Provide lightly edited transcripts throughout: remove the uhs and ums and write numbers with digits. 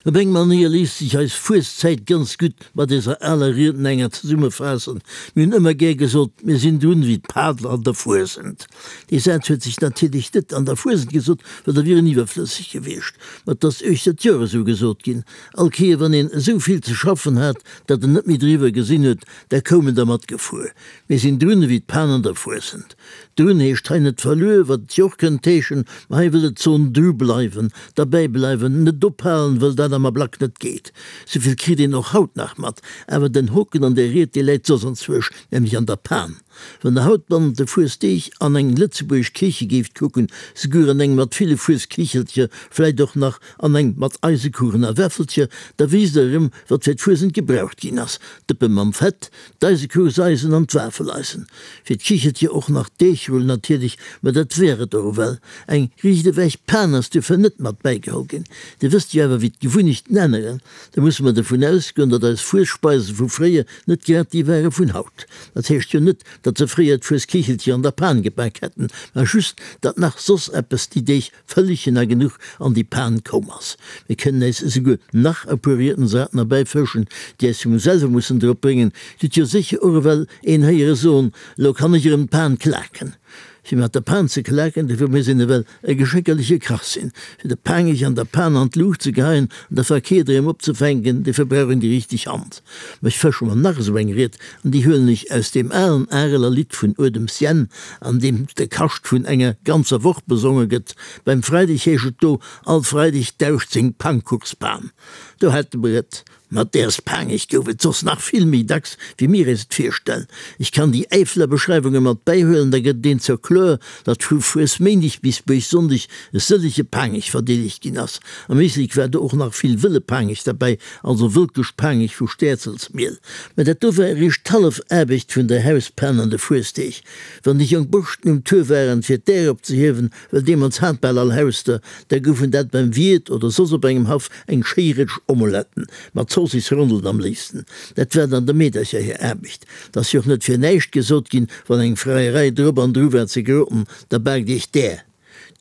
Op eng Manéier léisst sech eis Fueszäit ganz gutt mat eiser aler Riednenger zesummefaassen, Mir hunn ëmmer gär gesot, mir sinn drun ewéi d'Padler an der Fuesent. Dee Saz huet sech natierlech net an der Fuesent gesot, well da wier en iwwerflësseg gewiescht. Ma 't ass uechter d'Joer esou gesot ginn. All Kéier wann een esou vill ze schaffen hat, datt en net méi driwwer gesinn huet, da koum en dermat gefuer, Mir sinn drun ewéi d'Pan an der Fuesent. Drun heescht hei net verluer, wat et jo och kënnt heeschen, ma hei wëll et soen dru bleiwen, derbäi bleiwen, net ophalen, wëll dat am Ablack net geet. Souvill kritt een och haut nach mat. Awer den Hoken an der Ried, dee läit soss anzwousch, nämlech an der Pan. Wann der haut bannent de Fuesdeeg an eng lëtzebuergesch Kiche géift kucken, souguer an eng mat ville Fueskichelcher, vläit och nach an eng mat Eisekuchen a Wäffelcher, da wéisst der erëm, wat fir d'Fuesent gebraucht ginn ass, Dëppe mam Fett, D'Eisekuchseisen an d'Wafeleisen. Fir d'Kichelcher och nach d'Deegrull natierlech, ma dat wär et och ewell. Eng riicht ewech Pan ass duerfir net mat bäigeholl ginn. Dir wësst jo awer wéi d'Gewunnechten änneren. Da musse mer dovun ausgoen, datt eis Fuesspeise vu fréier net grad déi ware vun haut. Dat heescht jo net, datt se fréier d'Fuesskichelcher an der Pan gebak hätten, ma just, datt nach soss eppes déi Deeg Vëllechen a genuch an déi Pan koum ass. Mir kënnen äis esouguer nach e puer Riedensarten erbäifëschen, déi äis vum selwe mussen drop bréngen. Dir hutt jo sécher och ewell een héiere soen, Elo kann ech erëm d'Pan klaken. Fir mat der Pan ze klaken, dofir muss een ewell e geschéckerleche Kach sinn. Fir de Paangech an der Pan an d'Luucht ze geheien an da verkeert erëm opzefänken, dofir brauch een déi richteg Hand. Mä ech fësche mer nach esou eng Ried, an déi huelen ech aus deem alen Areler Lidd vun Uedems Jänn, an deem de Kascht vun enger ganzer Woch besonge gëtt. Beim Freideg heescht et do, All Freideg dauscht seng Pangkuchspan. Do hätte mer et. Mat däers Paangech gouf et soss nach vill méi dacks, wéi mir eis et virstellen. Ech kann déi Äifeler Beschreiwunge mat bäihuelen, da gëtt et een zur kloer, datt vu Fuesméindeg bis Buergsonndeg e sëllege Paangech verdeelegt ginn ass. Am Éislek war do och nach vill wëlle Paangech derbäi, also wëlkesch Paangech vu Stäerzelsmiel. Mä dat do war eréischt d'hallef Aarbecht vun der Hauspan an de Fuesdeeg. Wann déi jonk Borschten um Tour waren, fir d'Äer opzehiewen, well deemools hat bal all Haus der, da goufen dat beim Wiert oder soss op engem Haff eng schéi Rëtsch Omeletten, mat Zoossisrondelen am léifsten. Dat war dann der Meedercher hir Aarbecht. 't ass jo och net fir näischt gesot ginn, wann eng Freierei drop an dru war ze groten, da baakt iech d'Äer.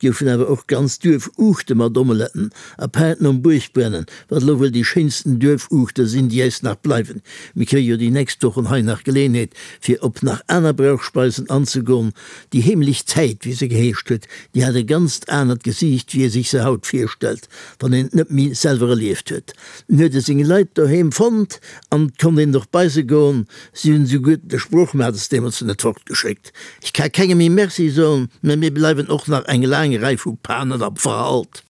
't goufen awer och ganz Duerfuuchte mat Omeletten, apaart nom Buergbrennen, wat elo wuel déi schéinsten Duerfuuchte sinn, déi äis nach bleiwen. Mir kréie jo déi nächst Wochen hei nach Geleenheet, fir op nach aner Brauchspeisen anzegoen. Déi heemlech Zäit, wéi se geheescht huet, déi hat e ganzt anert Gesiicht, wéi ee sech se haut virstellt, wann een et net méi selwer erlieft huet. En huet e seng Leit doheem fonnt an 't konnt een och bei se goen. Si hunn esouguer de Sproochmates deemools net fortgeschéckt. Ech ka kengem méi Merci soen, mä mir bleiwen och nach eng laang Rei vu Panen am Verhalt.